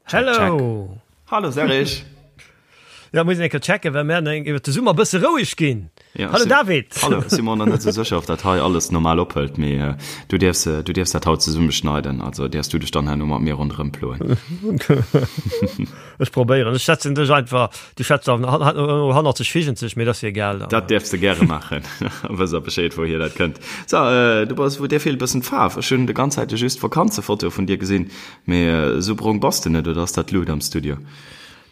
Hello! Hallo Serge! Ja, muss een eng Kéier checken, well mir eng iwwer de Summer e bësse roueg ginn. Ja, Hallo si- David! Hallo, ech si mer nach net sou sécher, ob dat hei alles normal ophëlt, mee äh, du däerfs, äh, du däerfs dat haut zesumme schneiden, also däerfs du dech dann herno mat mir ronderëm ploen. Ech probéieren, ech schätzen dech einfach, du schätz dann hannert sech, figent sech, mee dat ass jo egal. Dat däerfs de gäre maachen, wëss a Bescheed, wouhier dat kënnt. So, äh, du bass, wou dir feelt e bëssen d'Faarf. Ech hunn de ganz Zäite just Vakanzefotoe vun dir gesinn. Mee esou brong bass de net, oder ass dat d'Lut am Studio?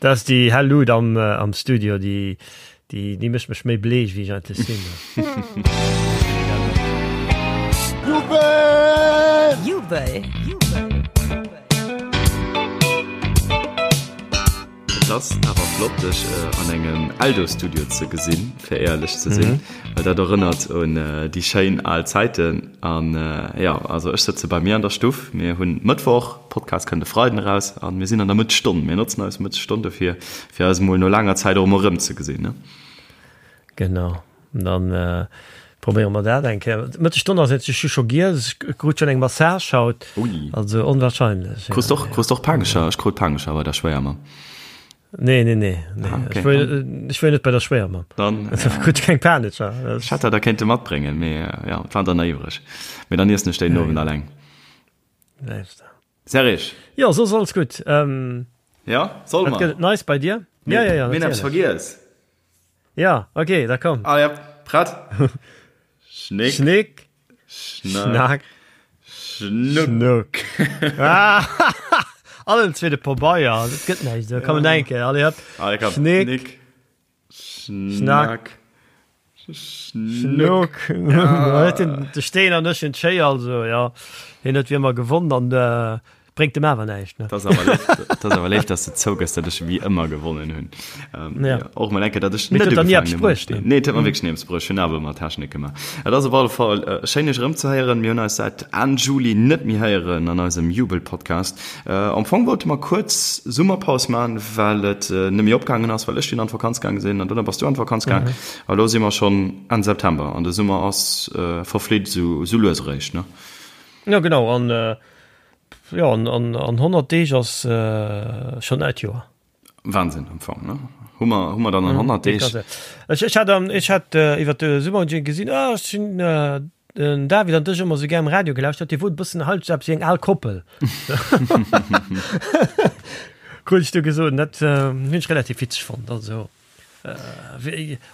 Dat ass déi hell Lut am am Studio, déi déi déi mécht mech méi bleech wéi ech eigentlech sinn. Jubel! Jubel! Et ass awer flott dech an engem Eldo-Studio ze gesinn, fir éierlech ze sinn, well dat erënnert un déi schéin al Zäiten. An jo, also ech sëtze bei mir an der Stuff, mir hunn Mëttwoch, Podcast kënnt e Freiden eraus an mir sinn an der Mëttesstonn. Mir notzen eis Mëttesstonn dofir, fir eis emol no laanger Zäit och emol erëmzegesinn, ne? Genau. Dann probéiere mer dat eng Kéier. Mëttesstonn ass et, ech hu scho giess, ech krut schonn eng Massage haut. Ui. Also onwahrscheinlech. Krus och, krus och Panescher? Ech krut Panescher bei der Schwéiermamm. Nee, nee, nee, nee. Ah, okay. Ech wor, ech wor net bei der Schwéiermamm. Dann, ja. Krut keng Panescher. Ech hätt der der kéinte matbréngen, mee ja, et waren der nach iwwreg. Mee dann iessen ech déi den Owend alleng. Serge. Jo, soss alles gutt. Ja, solle mer? Wat gëtt et Neis bei dir? Ja, ja, ja, Mir hunn eppes vergiess. Ja, okay, da komm. Ah ja, prett? Schnick. Schnick. Schnack. Schnuck. Schnuck. Ah, allen zweete Pabeier, dat gëtt näischt. Da komm eng Kéier, allez hopp. Allez, komm. Schnick. Schnick. Schnack. Schnuck. Ja. De Steen an ech hunn d'Schéier, also ja, hien huet wéi ëmmer gewonn an äh, bréngt dem awer näischt. Ne? Dat ass awer léif, dat ass awer léif, dass de zougëss, datt ech wéi ëmmer gewonnen hunn. Ähm, Ja. ja, och mol enke, datt ech Mee net et huet der ni ugefaangen eppes hunn mam bruecht, Steen. ne? Nee, et huet mer wierklech ni eppes bruecht. Ech hunn awer ëmmer Technik gemaach. Et ass op alle Fall äh, schéin, iech erëmzehéieren. Mir hunn eis säit Enn Juli net méi héieren an eisem Jubel-Podcast. Am Fong wollte mer kuerz Summerpaus man, well et net méi opgaangen ass, well ech dunn an d'Vakanz gaange sinn an dunn bass du an d'Vakanz gaang. A lo si mer schonn Enn September an de Summer ass verflitt esou lues eréischt, ne? Jo genau, an jo an 100 Deeg ass schonn neit Joer. Wahnsinn am Fong, ne? Hu mer, hu mer dann an 100 Deeg. Ech, ech hat, ech hat iwwer de Summer gesinn, ah, ech hunn den David an dech ëmmer sou gär am Radio gelauschtert, Dir wot e bëssen halt sou eppes wéi eng al Koppel. Krut ech du gesot, dat hunn ech relativ witzeg fonnt, also.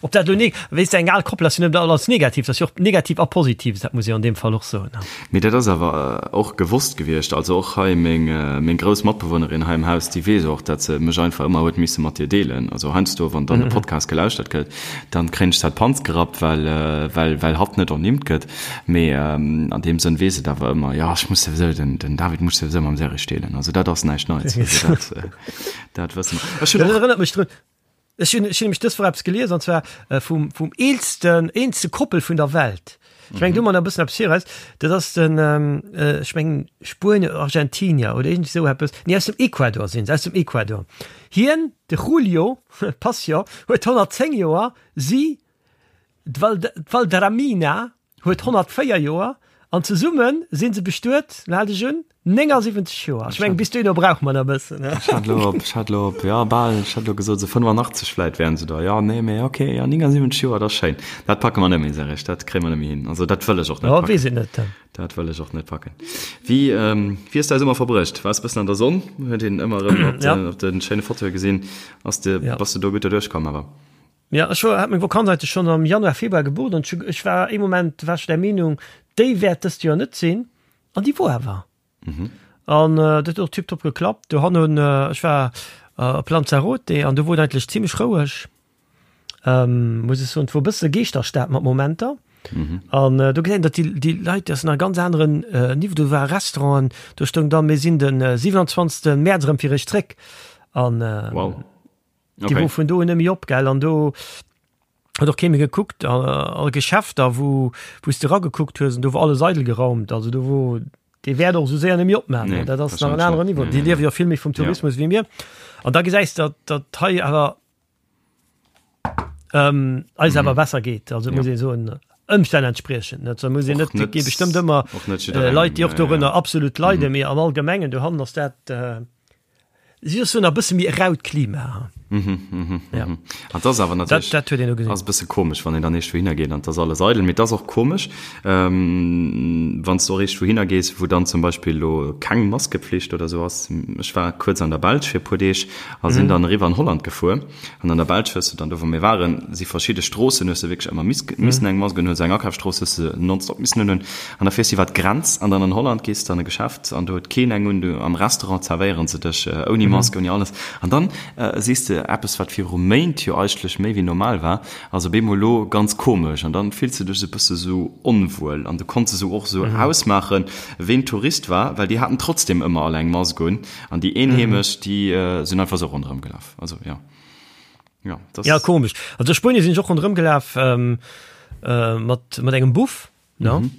Ob dat elo ne, weess de, eng al Koppel ass jo net alles negativ, dat ass jo och negativ a positiv, dat muss ee jo an deem Fall och soen. Mee dat ass awer och gewosst gewiescht. Also och hei meng, meng grouss Matbewunnerin hei am Haus, déi weess och, datt se mech einfach ëmmer huet misse mat dir deelen. Also heiansdo, wann dann e Podcast gelauschtert gëtt, dann kréien ech dat Panz gerappt, well, well, well hatt net ernimmt gëtt. Mee an deem Sënn weess et awer ëmmer, jo, ech muss souwisou, den, den David muss souwisou mam Serge deelen. Also dat ass näischt Neits. Also dat, dat wësse mer. Ech hunn och. Dat erënnert mech drun, Ech hunn ech hunn nämlech dës Woch eppes gelies, an zwar vum vum eelsten eelste Koppel vun der Welt. Ech mengen do man e bëssen eppes viraus. Dat ass den ech mengen Spuenier oder Argentinier oder iergendwéi esou eppes. Nee aus dem Ecuador sinn se, aus dem Ecuador. Hien, de Julio Passion, huet 110 Joer, si, d'Valdramina, huet 104 Joer an zesumme si se bestuet, lo hal dech un, 79 Joer. Ech mengen, bis dohinner brauche mer nach e bëssen. Ech hat elo op, ech hat elo op, jo, bal, ech hat elo gesot, esou 85 vläit wären se da. Jo, nee, mee ok, jo, 79 Joer, dat ass schéin. Dat packe mer net méi, Serge, dat kréie mer net méi hin. Also dat wëll ech och net Jo, packen. weess een net. Dat wëll ech och net packen. Wéi, wéi hues de däi Summer verbruecht? Waars e bëssen an der Sonn? Huet een ëmmer erëm op den, op de schéine Fotoe gesinn. Ass de, bass de do gutt derduerch komm awer? Jo, ech hat meng Vakanz eigentlech schonn am Januar, Februar gebucht an ech war ee Moment war ech der Meenung, déi wäert dëst Joer net sinn an déi wor awer. An dat huet och tiptop geklappt. Do hannen, ech war op Lanzarote an do wor et eigentlech zimlech roueg, muss ech soen. Et wor e bësse Geeschterstad mat Momenter an do gesäit een, datt déi déi Leit, dat ass nach e ganz aneren Niveau. Do ware Restauranten, do stoung dann, mir sinn de 27. Mäerz erëm fir iech zréck an. Wow. Déi wor vun do un net méi op, gell? An do huet och kee méi gekuckt. All Geschäfter, wou wou s de eragekuckt hues, an do wor alles eidel geraumt. Also do wor, dee wäert och esou séier net méi opmaachen. Nee, Dat ass nach en wahrscheinlech aneren net. Niveau. Nee, Déi nee, liewe nee. jo vill méi vum Ja. Tourismus wéi mir. An da gesäis de, datt datt hei awer ähm, eis awer besser geet. Also Ja. muss ee soen. Ëmstänn entspriechend, net? Muss een net, et gi bestëmmt ëmmer Leit, déi och dorënner absolut leiden, mee am Allgemengen dohannen ass dat, si ass soen, e bësse méi e raut Klima. Ja. An dat ass awer natierlech, dat huet een do gesinn. Ass e bësse komesch, wann een dann eescht wouhinner geet an et ass alles eidel. Mee et ass och komesch, wann s du och eescht wouhinner gees, wou dann zum Beispill elo keng Maskepflicht oder esou ass. Ech war kuerz an der Belsch fir e puer Deeg a sinn dann eriwwer an Holland gefuer. An an der Belsch hues du dann, do wou mir waren, si verschidde Stroossen, hues du wierklech ëmmer missen eng Mask unhunn, esou eng Akafsstrooss hues du nonstop missen unhunn. An da fiers du iwwer d'Grenz an dann an Holland gees de an e Geschäft an do huet keen eng un, du am Restaurant zerwéieren se dech ouni Mask, ouni alles. An dann sees de eppes, wat viru Méint jo eigentlech méi wéi normal war, ass op eemol elo ganz komesch. An dann fills de dech esou e bësse sou onwuel an du konns esou och esou ausmaachen, ween Tourist war, well déi haten trotzdem ëmmer all eng Mask un an déi Eenheemesch, déi sinn einfach esou ronderëm gelaf. Also ja. Ja, das ja komisch. Also Spuenie sinn ech och ronderëm gelaf ähm, äh, mat, mat engem Buff. Ne? Mhm.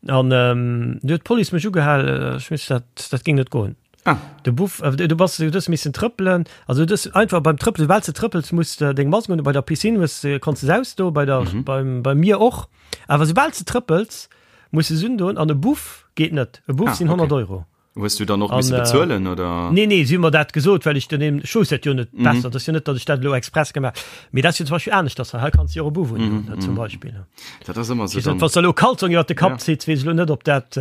An ähm, du huet d'Police mech ugehal, äh, ech muss dat, dat ging net goen. Ah. De Buff, äh, du bass du hues missen trëppelen, also du hues einfach beim Trëppelen, soubal s de trëppels, muss de deng Mask un, bei der Piscine hues de konns de se ausdoen, bei der, mhm. beim, bei mir och. Awer soubal s de trëppels, muss de se undoen an e Buff geet net. E Buff ah, sinn 100 okay. Euro. Hues du dann och misse bezuelen oder? Nee, nee, si hu mer dat gesot, well ech den eben, ech wousst dat jo net besser, dat ass jo net, datt ech dat elo express gemaach mee dat ass jo zum Beispill aneschters hei, hei kanns du jo och e Buff undoen, ne, zum Beispill. Dat ass ëmmer esou dann. Wann s de elo Kalzong iwwer de Kapp zitt, weess ech elo net, ob dat,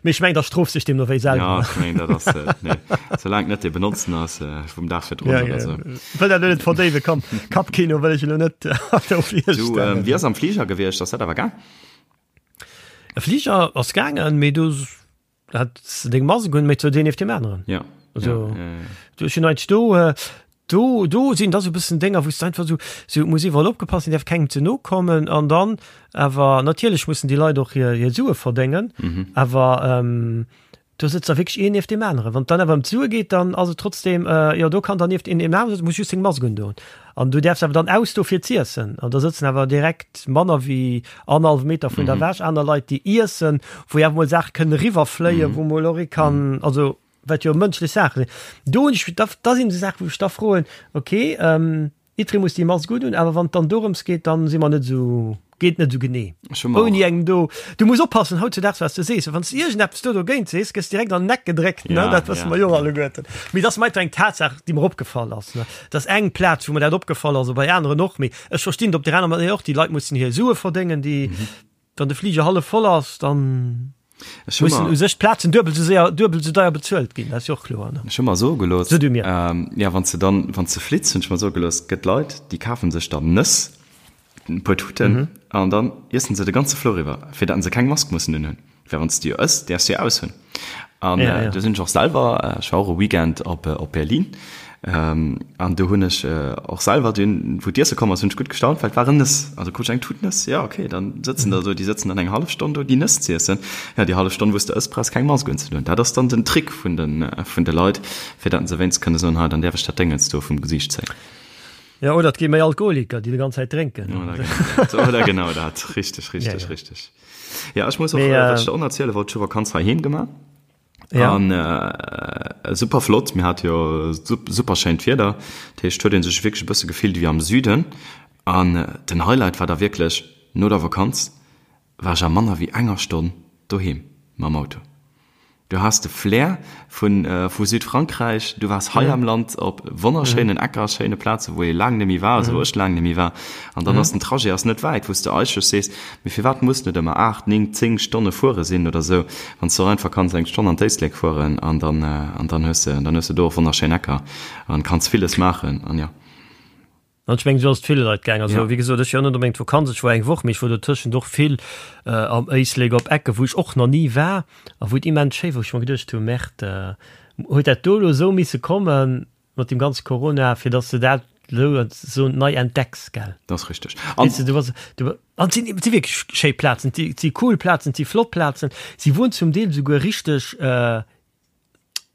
mee ech mengen, da strooft sech deemno wéi selwer. Ja, ech mengen, dat ass, nee, soulaang et net dee benotzen ass vum Dag virdrun oder esou. Wëll dat elo net verdéiwen, komm, Kappkino wëll ech elo net do virstellen. Du, wéi ass am Fliger gewiescht, ass dat awer gaang? E Fliger ass gaangen, mee do hat deng Mask un, mee zu deen nieft deem aneren. Ja. Also, ja, ja, ja. Du ech hunn eigentlech do, äh, do, do sinn da sou bëssen Dénger, wou s de einfach sou, sou muss iwwerall opgepasst sinn, däerf kengem ze no kommen an dann awer natierlech mussen déi Leit och hir, hir Sue verdéngen, mhm. awer ähm, do sëtzt da wierklech een nieft deem aneren. Wann et dann awer ëm d'Sue geet, dann ass et trotzdem, äh, jo do kann dann nieft een deem aneren sëtzen, muss just seng Mask undoen. An du däerfs awer dann ausdo fir z'iessen. An da sëtzen awer direkt manner wéi annerhallwe Meter vun der ewech aner Leit, déi iessen, wou jo awer mol Saache kënnen eriwwerfléien, wou mol och ee kann, also wat jo mënschlech Saache sinn. Do hunn ech, da da sinn esou Saachen, wou ech da froen, okay, jiddweree muss déi Mask unhunn, awer wann et dann dorëms geet, dann si mer net esou, geet net esou genee. Ech hu mer Ouni och. engem do, du muss oppassen hautzudaags, wat s de sees, well wann s de iergendeppes do dogéint sees, gëss direkt an den Eck gedréckt, ne, Ja, dat wësse ja, mer jo ja. alleguerten. Mee et ass mer einfach eng Tatsaach, déi mer opgefall ass, ne. Dat ass eng Plaz, wou mer dat opgefall ass, a bei aneren och. Mee ech verstinn et op där aner Manéier och, déi Leit mussen hir Sue verdéngen, déi, wann de Fliger hallef voll ass, dann Ech hu mussen mer, u sech d'Plazen duebel esou séier, duebel esou deier bezuelt ginn. Dat ass jo och kloer, ne? ech hu mer soe gelooss, So du mir. ja, wann s de dann, wann s de flitts, hunn ech mer soe gelooss, et gëtt Leit, déi kafe sech dann Nëss, e puer Tuten, an dann iessen se de ganze Flouer iwwer, fir datt se keng Mask mussen unhunn. Well wann s de jo ëss, däerfs de jo aushunn. An Ja, ja. do sinn ech och selwer, ech war och e Weekend op, op Berlin, an do hunn ech och selwer dunn, wou d'Iesse komm ass, hunn ech gutt gestaunt, well et waren Nëss. Also krut ech eng Tut Nëss, jo okay, dann sëtzen der do, déi sëtzen dann eng hallef Stonn do, déi Nëss z'iessen. Ja, déi hallef Stonn, wou s de ëss, brauchs keng Mask unzedoen. Dat ass dann den Trick vun de, vun de Leit, fir datt se wéinst kënne soen, hei, dann däerf ech dat Déngens do vum Gesiicht zéien. Ja, oder et gi méi Alkoholiker, déi déi ganz Zäit drénken. Oder genau dat, oder genau dat. Richteg, richteg, Ja, ja. richteg. Ja, ech muss och, Mee, äh, wat äh, ech der och erziele wollt, ech hu Vakanz heiheem gemaach. Ja. An äh, super flott, mir hat jo super schéint Wieder. Dat heescht, huet een sech wierklech e bësse gefillt wéi am Süden. An äh, den Highlight war da wierklech, no der Vakanz war ech a manner wéi enger Stonn doheem mam Auto. Du has de Flair vun vu Südfrankräich, du waars hei am Land op wonnerschéinen Ecker, schéine Plazen, wou ee laang net méi war, also wou ech laang net méi war. An dann ass den Trajet ass net wäit, wou s de eigentlech sees, mee firwat muss net ëmmer 8, 9, 10 Stonne fuere sinn oder esou, wann s de och einfach kanns eng Stonn an d'Éislek fueren an dann an dann hues de dann hues de do och wonnerschéin Ecker an kanns villes maachen an jo. An ech mengen, esou ass et ville Leit gaang. Also, Ja. wéi gesot, ech war net onbedéngt Vakanz, ech war eng Woch, mee ech war dotëschent och vill am Éislek op Ecke wou ech och nach ni war a wou et immens schéi war, wou ech mer geduecht hu, Merde, huet dat do elo esou misse komme mat deem ganze Corona, fir datt s de dat elo esou nei entdecks, gell? Dat ass richteg. An. Weess de, du bass, du, an et sinn, et si wierklech schéi Plazen, et si, et si cool Plazen, et si flott Plazen, si wuaren zum Deel esouguer richteg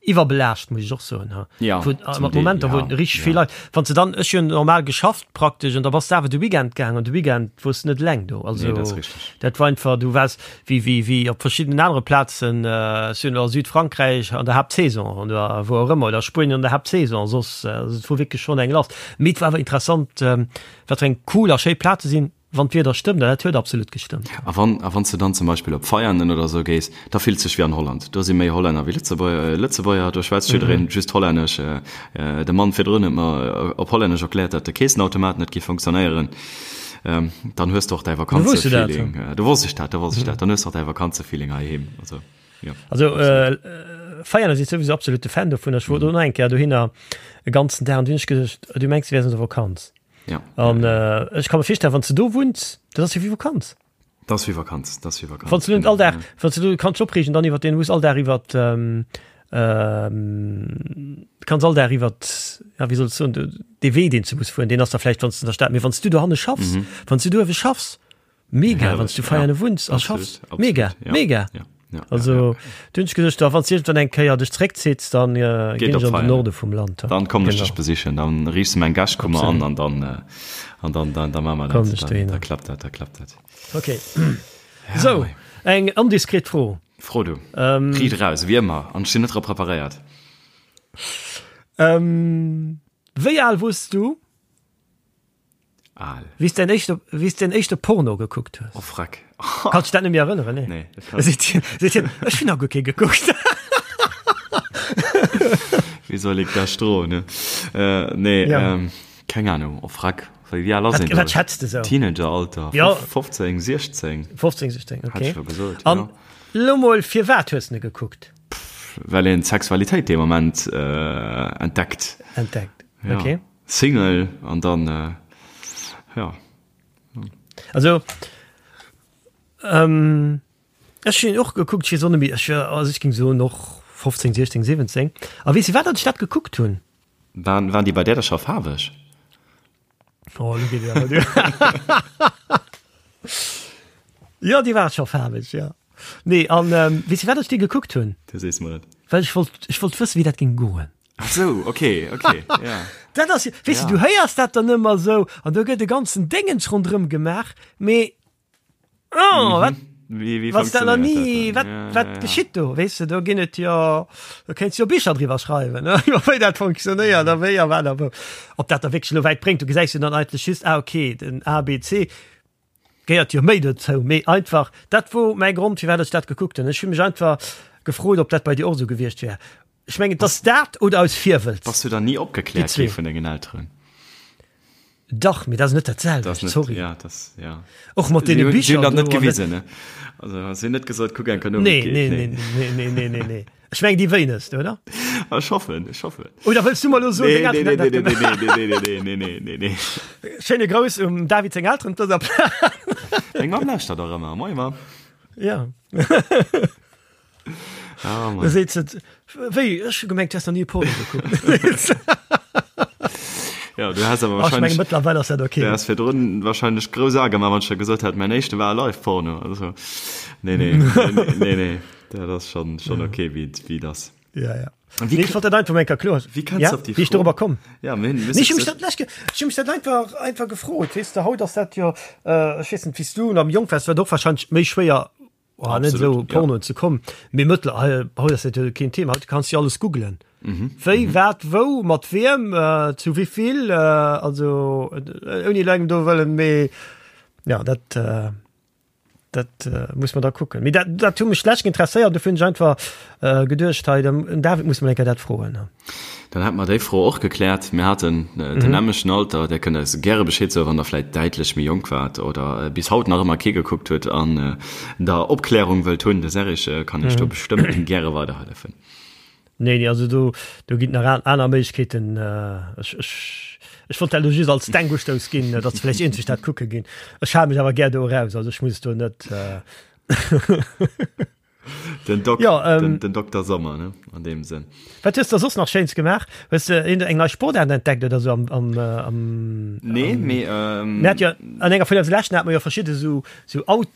Iwwerbelaascht muss ech och soen ha. Ja, Wou, zum mat Deel, Momenter wou ja, richteg ja. vill Leit, wann se dann, ech hunn normal geschafft praktesch an da bass de awer de Weekend gaang an de Weekend wors de net eleng do. Also Nee, dat ass richteg. dat war einfach, du waars wéi wéi wéi op verschiddenen anere Plazen, ech hunn a Südfrankräich an der Haaptsaison oder wou och ëmmer oder Spuenien an der Haaptsaison, soss, also et wor wierklech schonn eng lass. Mee et war awer interessant, wat fir eng cool a schéi Plaze sinn. Wann d'Wieder stëmmt, an dat huet absolut gestëmmt. A wann, a wann s de dann zum Beispill op Veianen oder esou gees, da fills dech wéi an Holland. Do si méi Hollänner wéi Lëtzebuerger, do schwätzt jiddereen just Hollännesch. De Mann virdrun huet mer op Hollännesch erkläert, datt de Keessenautomat net géif funktionéieren. Dann hues de och däi Vakanzefeeling. Do wosst ech dat, do wosst ech dat. Dann hues de och däi Vakanzefeeling heiheem. Also, jo. Also, Veianen si souwisou absolute Fan dovun. Ech wor do nach eng Kéier dohinner e ganzen Dag an du hunn ech geduecht, du mengs, du wäers an der Vakanz. Ja. An äh, ech kann mir virstellen, wann du do wunns, dat ass jo wéi Vakanz. Dat ass wéi Vakanz, dat ass wéi Vakanz. Wann du net all Dag, wann du kannst opreegen dann iwwer den muss all Dag iwwer ähm, ähm, kannst all Dag iwwer ja, wie soll ich soen, de Wee den du muss fueren, den ass da vielleicht wann du in der Stadt, mee wann du dohanne schaffs, mhm. wann du do schaffs, Mega, wann du Veianen wunns a schaffs. Mega, mega. Also du hunn ech geduecht, da wann s iergendwann eng Kéier dech zréckzitts, dann ginn ech an den Norde vum Land. Dann kommen ech dech besichen, dann riichs de meng Gäschkummer an an dann an dann dann da maache mer dat. Dann da klappt dat, da klappt dat. Okay. Sou, eng indiskret Fro. Fro du. Riit eraus, wéi ëmmer, an ech sinn net drop preparéiert. Wéi al wors du? Al. Wéi s däin éischte, wéi s däin éischte Porno gekuckt hues. Oh freck. Kanns dech dat net méi erënneren, nee? Nee, dat kann. Seet hien, seet hien, ech hunn nach guer kee gekuckt. Wéi soll ik dat stroen, ne? Äh, nee, Ja. ähm, keng Ahnung. Oh freck. Wéi, wéi al ass Wat, een do? wat schätz de sou? Teenageralter, Ja. 15, 16. 15, 16, Hat okay. ech lo gesot, An ja. lo mol, firwat hues de ne gekuckt? Well een d'Sexualitéit dee Moment äh, entdeckt. Entdeckt, Ja. okay. Single an dann jo. Also ech hunn och gekuckt, ech weess och net méi, ech war, also ech géing soen och 15, 16, 17. A weess de wat, datt ech dat gekuckt hunn? Waren, waren déi bei där da scho faarweg? Oh, lo geet et awer duer. Jo, déi war scho faarweg, jo. Nee, an weess de wat, datt ech déi gekuckt hunn? Du sees mer et. Well ech wollt, ech wollt wëssen, wéi dat géing goen. Ach sou, okay, okay, ja. Dat ass, weess Ja. du, du héiers dat dann ëmmer sou an do gëtt e ganzen Déngens ronderëm gemaach, mee oh, wat, Wéi, wéi wanns dat nach funktionéiert ni, dat wat, dann? Ja, wat ja, ja. geschitt do, weess de, do ginn et jo, do kéints jo Bicher driwwer schreiwen, ne, iwwer wéi dat funktionéiert a wéi a wat a wou. Ob dat da wierklech elo wäit bréngt, du gesäis jo dann eigentlech just, ah okay, den A, B, C, Gehéiert jo méi dozou, mee einfach, dat wor mäi Grond firwat ech dat gekuckt hunn. Ech hu mech einfach gefrot, ob dat bei dir och esou gewiescht wär. Ech mengen, et ass dat oder aus Virwëlz. Bass du dann ni opgekläert gi vun dengen Elteren? Dach, mee dat ass net dat selwecht, sorry. Ja, dat, ja. Och mat deene Bicher. Si hunn dat net gewisen, ne? Also si hunn net gesot, kuck eng Kéier no, wéi et geet. Nee, nee, nee, nee, nee, nee, nee. Ech mengen déi wéinegst, oder? Ech hoffen, ech hoffen. Oder wëlls du mer elo soen, deng Elteren hätten dat gemaach? Nee, nee, nee, nee, nee, nee, nee, nee. Schéine Grouss um David seng Elteren op dëser Plaz. Meng Mamm lauschtert och ëmmer. Moie Mamm. Ja. Oh Mann. Da seet se, wéi, ech hu gemengt, du häss nach ni e Porno gekuckt. Ja, du has awer Ach, ech menge wahrscheinlech, mëttlerweil ass dat okay. du has virdrun wahrscheinlech grouss A gemaach, wann ech der gesot hätt, mäin éischte war e Live-Porno. Also, nee, nee, nee, nee, nee. Dat ass schon, schon okay, wéi et, wéi et ass. Ja, ja. Wie Nee, ich wollt dat einfach mal kloer. Wie kannst ja? du op déi Wie ich Fro- darüber komm. Ja, mir hunn, Nee, ich hu mech dat lech ge- ich hu mech dat einfach, einfach gefrot. Weess de, haut ass dat jo, äh, ech weess net, wéi s du am jonk waars, war et och wahrscheinlech méi schwéier, oh, net Absolut, esou ja. Pornoen ze kommen. Mee mëttler, hei, haut ass dat jo keen Thema. Haut kanns du jo alles googlen. Mhm. Wéi, wat, wou, mat wiem, äh, zu wéivill, äh, also, äh, ouni elo engem do wëllen, mee ja, dat, äh, Dat muss mer da kucken. Mee dat, dat hu mech schlecht interesséiert, dofir hunn ech einfach äh, geduecht, hei, dem den David muss mer eng Kéier dat froen. Dann hätte mer déi Fro och gekläert. Mir haten äh, den nämlechten Alter. Där kënnt eis gäre Bescheed soen, wann der vläit däitlech méi jonk waart oder äh, bis haut nach ëmmer kee gekuckt huet an äh, der Opklärung wëllt hunn. De Serge äh, kann iech do bestëmmt gäre weiderhëllefen. Nee, nee, also do, do ginn nach an, aner Méiglechkeeten. Äh, ech, ech, ech wollt dat lo just als Denkustouss ginn, datt vläicht eenzeg dat kucke ginn. Ech hale mech awer gär do eraus, also ech muss do net. Äh Den, Dok Ja, ähm, den, den Dokter Sommer, ne? An deem Sënn. Wat hues de soss nach Schéins gemaach? Hues de een, eng nei Sportaart entdeckt oder sou am, am, äh, am, Nee, mee. Ähm, Mir hat jo an enger vun eise leschten hat mer jo verschidde sou, sou Out,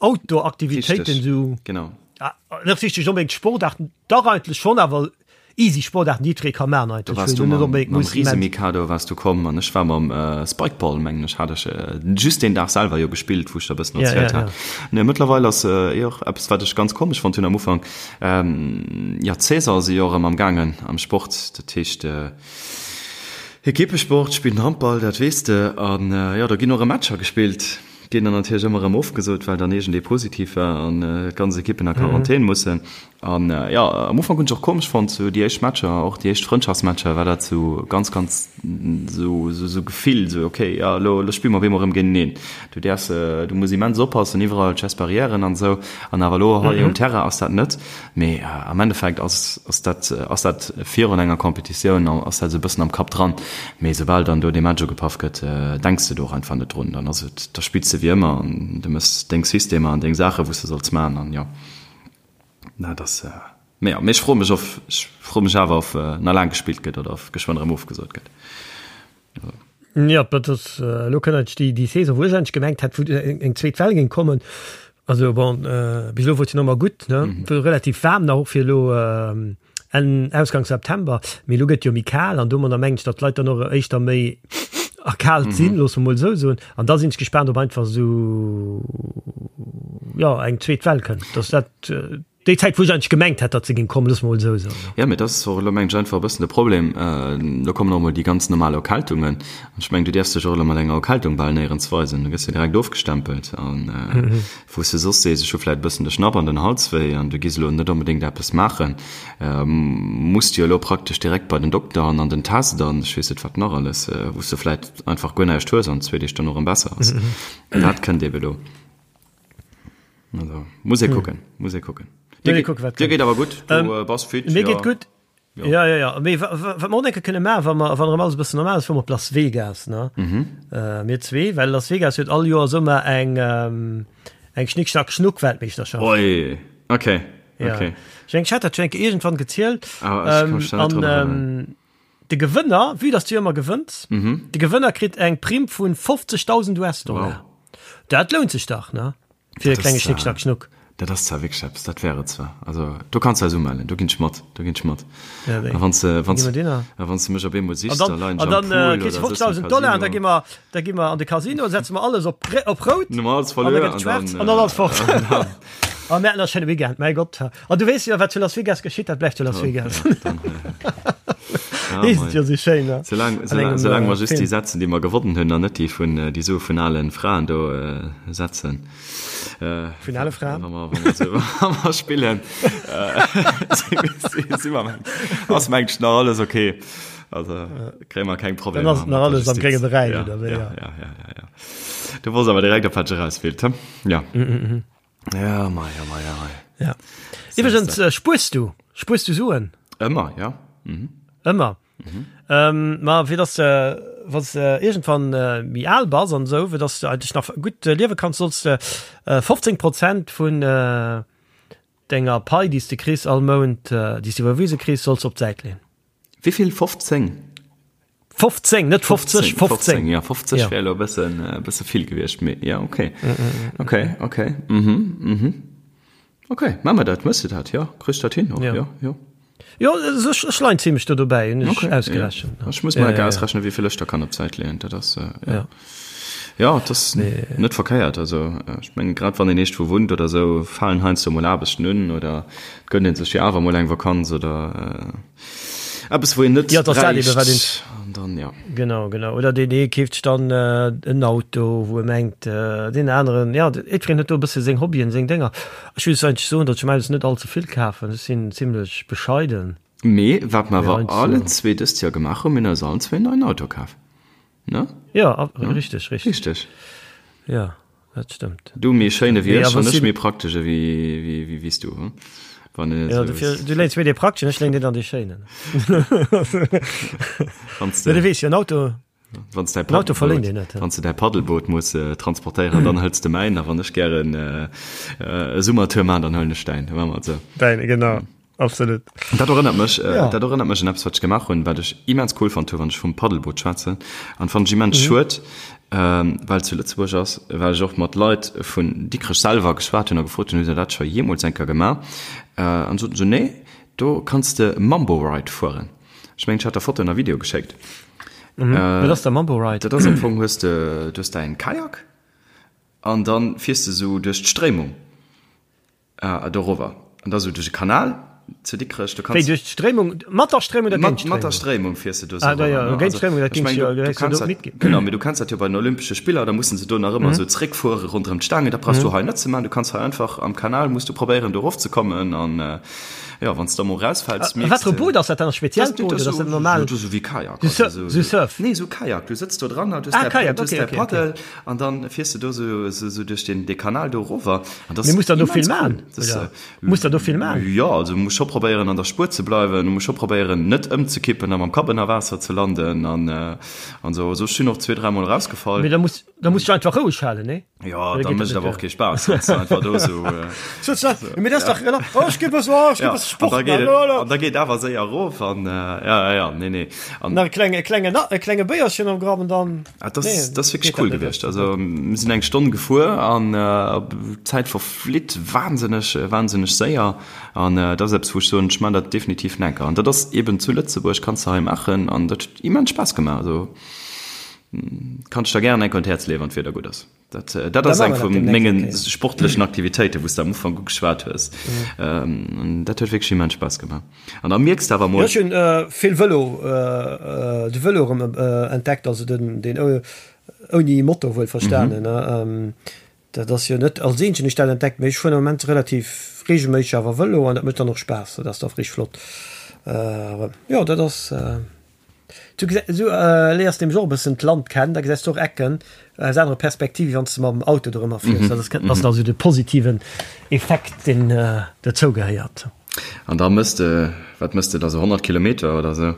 Outdoor-Aktivitéiten sou. Genau. Ah, net richtig unbedingt Sportarten, dach eigentlech schon, awer easy Sportarten, déi jiddweree ka maachen Do eigentlech, wars wou du een net mam, unbedingt mam muss immens. Riesemikado wars du komm an ech war mam äh, Spikeball, mengen ech, hat ech äh, just deen Dag selwer jo gespillt, wou ech der e bëssen Ja, erzielt ja, hat. ja. Nee, mëttlerweil ass äh, eh och eppes, wat ech ganz komesch fonnt hunn am Ufank, ähm, ja, d'Saison si jo erëm am gaangen am Sport, dat heescht äh,. Ekippesport, spillen Handball, dat weess de. An jo, do ginn och erëm Matcher gespillt. Ginn dann natierlech ëmmer erëm ofgesot, well dann iergendee positiv war an d'ganz Ekippen a Quarantän mussen. An jo, am Ufank hunn ech och komesch fonnt, sou déi éischt Matcher, och déi éischt Frëndschaftsmatcher, war dat sou ganz, ganz sou, sou Gefill, sou okay, jo, elo, elo spille mer op eemol erëm géinteneen. Du däerfs, du muss immens oppassen, iwwerall d'Gestes barrièren an esou. An awer elo hei um Terrain ass dat net. Mee am Endeffekt ass, ass dat, ass dat virun enger Competitioun, ass dat esou e bëssen am Kapp dran. Mee soubal dann do dee Match ugepaff gëtt, denks de do och einfach net drun. Dann ass et, da spills de wéi ëmmer an du méchs deng Systemer an deng Saache wou s de solls maachen an jo, dat ass, mee jo, mee ech froe mech of, ech froe mech awer of nach laang gespillt gëtt oder of geschwënn erëm ofgesot gëtt. Jo, dat ass, elo kënnt eigentlech déi, déi Saison, wou ech eigentlech gemengt hat, wou eng zweet Well géing kommen. Also bon, bis elo wor et jo nach ëmmer gutt, ne, wor relativ waarm nach och fir elo Enn, Ausgang September, mee elo gëtt jo méi kal an domadder mengen ech, datt d'Leit dann och éischter méi erkaalt sinn, loosse mer mol esou soen. An da sinn ech gespaant, ob einfach esou, jo, eng zweet Well kënnt, datt dat Déi Zäit, wou ech eigentlech gemengt hat, datt se géing kommen, loosse mer mol esou soen. Jo, mee dat ass och elo, mengen ech, einfach e bëssen de Problem. Elo kommen och emol déi ganz normal Erkältungen. An ech mengen, du däerfs dech och elo mat enger Erkältung bal néierens weisen. Du gëss jo direkt ofgestempelt. An wou s de soss sees, ech hu vläicht e bëssen de Schnapp an den Hals wéi an du gees elo net onbedéngt eppes maachen, muss de jo elo praktesch direkt bei den Dokter an an den Test an ech weess net wat nach alles, wou s de vläicht einfach guer näischt hues an zwee Deeg dono erëm besser ass. Dat kënnt eebe elo. Also, muss ee kucken, muss ee kucken. Dir geet, kucken, dir geet awer gutt, du ähm, bass fit. Mir geet gutt. Ja. Ja, ja, ja. Mee wat mer och enke kënne maachen, wa mer, wann erëm alles e bëssen normal ass, fuere mer op Las Vegas, ne? Mhm. Äh, mir zwee, well Las Vegas huet all Joer Summer eng, ähm, eng Schnick, Schnack, Schnuck Weltmeeschterschaft. Oi, okay. Ja. Okay. Ech mengen, ech hat dat schon enke iergendwann gezielt. Ah, ech kann mech da net Ähm, drun an, erënneren. ähm, de Gewënner, vue dass du jo ëmmer gewënns, Mhm. de Gewënner kritt eng Primm vun 50.000 US-Dollar. Wow. Dat lount sech dach, ne? Fir e Dat klenge ass, Schnick, Schnack, Schnuck. Dat ass zwar wierklech eppes, dat wär et zwar. Also do kanns de eis umellen, do ginn ech mat, do ginn ech mat. Ja, wéi? A wann s de, wann Gi s, mer dinner. a wann s de mech op eemol sichs, An da dann, leien ech an am dann äh, Pool kriss oder du sëtzen am 50.000 Dollar an da Casino. gi mer, da gi mer an de Casino, setze mer alles op, op rout Dann hu mer alles an da verluer gëtt et an schwaarz dann, an dann alles fort. an dann, A mir haten e schéine Weekend, mäi Gott. An du weess jo, wat zu Las Vegas geschitt, dat bleift zu Las Vegas. Ja, Heescht et jo sou schéin, ne? Soulaang, An soulaang, engem, soulaang mer äh, just déi Film. setzen, déi mer gewonnen hunn, an net déi vun, déi Sue vun alen Fraen do äh, setzen. Äh, Vun ale Fraen? Wa mer, wa mer, sou, wa mer spillen, äh, si, si, si mer mengt, ass mengt nach alles okay. Also, kréie mer keng Dann Problemer ass nach mat der alles am Justiz. grénge Beräich, Ja, oder wéi? ja, Ja. ja, ja, ja, ja. Du wosst awer direkt, op wat ech eraus wéilt, hm? Ja. Ja, mei, ja, mei, ja, mei. Ja. Iwwregens, äh, spuers du? Spuers du Suen? Ëmmer, ja. Mhm. Ëmmer. Mhm. Ähm, ma fir dass de, wann s de iergendwann äh, méi al bass an esou, fir dass du eigentlech nach gutt äh, liewe kanns, solls de äh, 15 Prozent vun äh, denger Pai, déi s de kriss all Mount, äh, déi s de iwwerwise kriss, solls de op d'Säit leeën. Wéivill? 15? 15, net 50, 15. Ja, 50 ja. wär elo e bëssen, e bësse vill gewiescht, mee ja, okay. Mm, mm, mm. Okay, okay. Mhm, mhm. Okay, maache mer dat. Mëss de dat? Ja, kriss dat hin och, ja. Ja, ja. Jo, ech, ech leien zimmlech do dobäi, hunn ech okay, ausgerechent. Ja. Ech muss mal ja, ja, ausrechnen, wéi vill ech da kann op d'Säit leeën. Dat ass, äh, ja. Ja. Ja, dat ass Nee. net verkéiert. Also, äh, ech mengen, grad wann een eescht wou wunnt oder sou, falen heiansdo mol Aarbechten un oder et gönnt een sech jo awer mol eng Vakanz oder, äh, Eppes wou een net Ja, dass dat eben wat een. bräicht an dann ja. Genau, genau. Oder deen ee keeft sech dann en Auto, wou e mengt, deen aneren, ja, jiddwereen huet do e bësse seng Hobbyen, seng Dénger. Ech muss eigentlech soen, datt ech meines net all ze vill kafen. Ech sinn zimlech bescheiden. Mee wat mer Mee awer heiansdo. allen zwee dëst Joer gemaach hunn, mir hunn eis allen zwee en neien Auto kaf, ne? Ja, richteg, richteg. Richteg. Ja. Dat stëmmt. Du méi schéin ewéi Nee, ech awer an ech si- méi praktesch ewéi wéi wéi wéi s du, hm? Wann een et Ja, esou dofir, du léins méi dee prakteschen, ech léin dir dann dee schéinen. Wann s Ja, du de weess jo, en Auto, wann s däi en Auto verléint Paddelboot, een net. wann s de däi Paddelboot muss äh, transportéieren, dann hëls de mäin, a wann ech gären äh, äh, e Summertour man, dann huelen ech däin. Da maache mer et esou. Däin, genau, absolut. Dat erënnert mech, äh, Ja. dat erënnert mech un eppes, wat ech gemaach hunn, wat ech immens cool fonnt hu, wann ech vum Paddelboot schwätzen. An fand ech immens Mhm. schued, ähm, well et zu Lëtzebuerg ass, well ech och mat Leit vun Dikrech selwer geschwat hunn a gefrot hunn, hutt der dat scho jeemools eng Kéier gemaach? Äh, an soten se, nee, do kanns de Mambo Ride fueren. Ech mengen, ech hat der Fotoen a Video geschéckt. Mhm. Wat ass der Mambo Ride? Dat ass am Fong, hues de, du hues däin Kajak an dann fiers de sou duerch d'Stréimung. Ah, dorower. An da sou duerch e Kanal. Zu Dikrech, du kanns. Wéi, duerch d'Stréimung, mat der Stréimung oder géint d'Stréimung? Mat der Stréimung fiers de do sou Ah, da jo, géint d'Stréimung, dat géing jo, du häss jo do mitginn. Genau, mee du kenns dat jo bei den Olympesche Spiller, da mussen se do nach ëmmer sou zréckfuere ronderëm d'Staangen. Dat brauchs du hei net ze maachen, du kanns hei einfach am Kanal, muss du probéieren do erofzekommen an jo, wann s de da mol erausfäls, mierks de. Wat fir e Boot ass dat dann? E speziellt Boot oder ass dat normal? Dat ass sou wéi Kajak. Sou Surf? Nee, sou Kajak, du sëtz do dran, du hues däi Paddel an dann fiers de do sou duerch dee Kanal do erover. Mee muss der do vill maachen? Muss der do vill maan? Jo, also du muss scho probéieren an der Spuer ze bleiwen, du muss scho probéieren net ëmzekippen a mam Kapp ënner Waasser ze landen an an sou. Also ech sinn och zwee, dräimol erausgefall. Mee da muss da muss du einfach roueg halen, nee? Jo, da mécht et awer och kee Spaass, wann s du einfach do sou. Mee dat ass dach rela, oh ech gi bëssen, oh ech gi bësse Sport maan, oh an da geet awer séier erof an ja, ja, ja, nee, nee. An nach e klenge, e klenge, e klenge Béierchen am Grapp an dann. Ah, das, nee, das wirklich cool gewiescht. Also mir sinn eng Stonn gefuer an äh, Zäit verflitt wahnsinneg äh, wahnsinneg séier an äh, dat ass eppes wou ech soen, ech man dat definitiv enker. An dat ass eben zu Lëtzebuerg kanns du hei maachen an dat huet immens Spaass gemaach. Also kann ech der gären enker un d'Häerz leeën, wann d'Wieder gutt ass. Dat, äh, dat ass eng vu mengen sportlechen Aktivitéiten, wou s de am Ufank ugeschwat hues. Mhm. Dat huet wierklech immens Spaass gemaach. An da mierks de awer mol. Ech hunn vill Vëlo, de Vëlo erëm entdeckt, also den, deen ouni Motor wuel verstanen. Mhm. Dat ass jo net als eenzegen ech dat entdeckt, mee ech fueren am Moment relativ reegelméisseg awer Vëlo an dat mécht dann och Spaass. Dat ass da richteg flott. Jo, dat ass. Du gesäis, du léiers nämlech och e bëssen d'Land kennen, da gesäis du och Ecken aus anere Perspektiv, wéi wann s de mam Auto dorëmmer fiers. Dat ass, ass also de positiven Effekt, deen dozou gehéiert. An da mëss de, wat mëss de da, sou 100 Kilometer oder sou?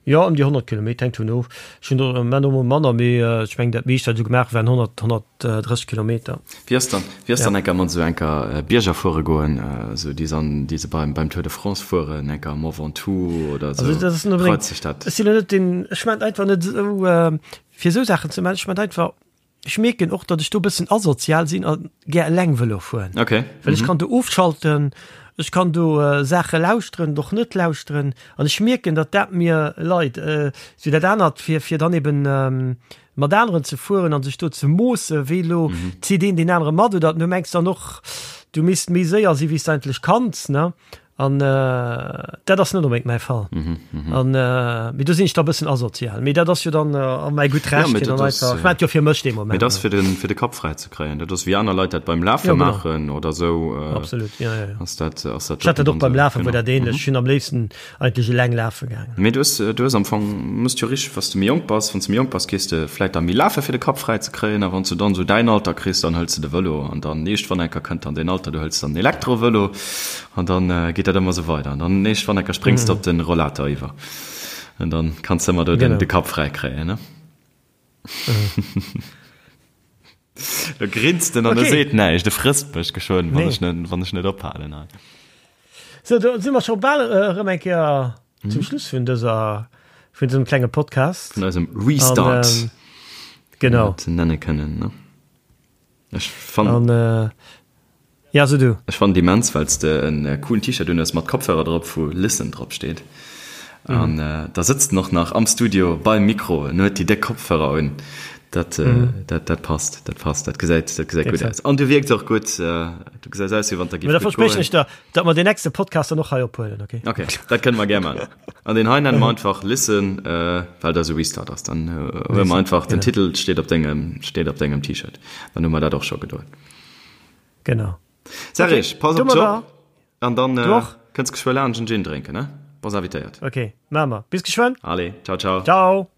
Jo, ëm déi 100 Kilometer, hänkt vun of. Ech hunn der elo mol manner, mee ech mengen dat meescht wat ech esou gemaach hunn, waren 100, 130 Kilometer. Wéi ass dann, wéi ass dann enker mat esou enker Bierger fuere goen, esou déi se an, déi se beim, beim Tour de France fueren, enker Mont Ventoux oder esou, Also dat ass net unbedéngt, reizt dech dat? ech sinn elo net deen, ech maan einfach net esou fir esou Saachen ze maachen, ech maan einfach, Ech mierken och, datt ech do e bëssen asozial sinn a gär eleng Vëlo fueren. Okay. Well ech kann do ofschalten, ech kann do Saache lauschteren oder och net lauschteren. An ech mierken, datt dat mir leit. Esou dat anert, fir, fir dann eben mat aneren ze fueren a sech do ze moossen, wéi elo zitt een deen anere mat oder du mengs dann och, du misst méi séier si wéi s de eigentlech kanns, ne? An dat ass net onbedéngt mäi Fall. An mee do sinn ech da e bëssen asozial. Mee dat ass jo dann a mäi gutt Recht, fir dann einfach, ech maachen et jo fir mech dee Moment. Mee dat ass fir den, fir de Kapp fräi ze kréien. Dat ass wéi aner Leit dat beim Lafe maachen oder esou. Absolut, jo, jo, jo. Ass dat, ass dat. Ech hat dat och beim Lafen, wor dat ähnlech. Ech sinn am léifsten eigentlech eleng lafe gaangen. Mee du hues, du hues am Fong, muss jo richteg, wann s de méi jonk bass, wann s de méi jonk bass, gees de vläit da méi lafe fir de Kapp fräi ze kréien a wann s du dann esou däin Alter kriss, dann hëls de de Vëlo an dann iergendwann enker kënnt dann deen Alter, du hëls dann den Elektrovëlo an dann geet dat ëmmer esou weider an dann iergendwann enker spréngs de op de Rollator iwwer an dann kanns de ëmmer do den, de Kapp fräi kréien, ne? Da grinst en an e seet näischt, e frësst mech geschwënn, wann ech net, wann ech net ophalen hei. Sou, do si mer scho bal erëm eng Kéier zum Schluss vun dëser, vun dësem klenge Podcast. Vun eisem Restart. An, genau. Ze nenne kënnen, ne? Ech fannen. An, ja, so du. Ech fannen et immens, well s de en coolen T-Shirt un hues mat Kopfhörer drop, wou Listen drop steet. An da sëtzt en och nach am Studio beim Mikro en huet déi déck Kopfhörer un. Dat, dat, dat passt, dat passt, dat gesäit, dat gesäit gutt aus. An du wierks och gutt, du gesäis aus, wéi wann der giff gutt goen. Da verspriechen ech der, datt mer deen nächste Podcast dann och hei ophuelen, okay? Okay, dat kënne mer gär maachen. An deen hei nenne mer einfach Listen, well dat esou Restart ass. Dann huele mer einfach den Titel steet op dengem, steet op dengem T-Shirt. Dann hu mer dat och scho gedoen. Genau. Serge, pass op dech op. An dann kënns geschwë laanscht en Gin drénken, ne? Bass invitéiert. Ok, maache mer. Bis geschwënn. Allez, ciao, ciao. Ciao.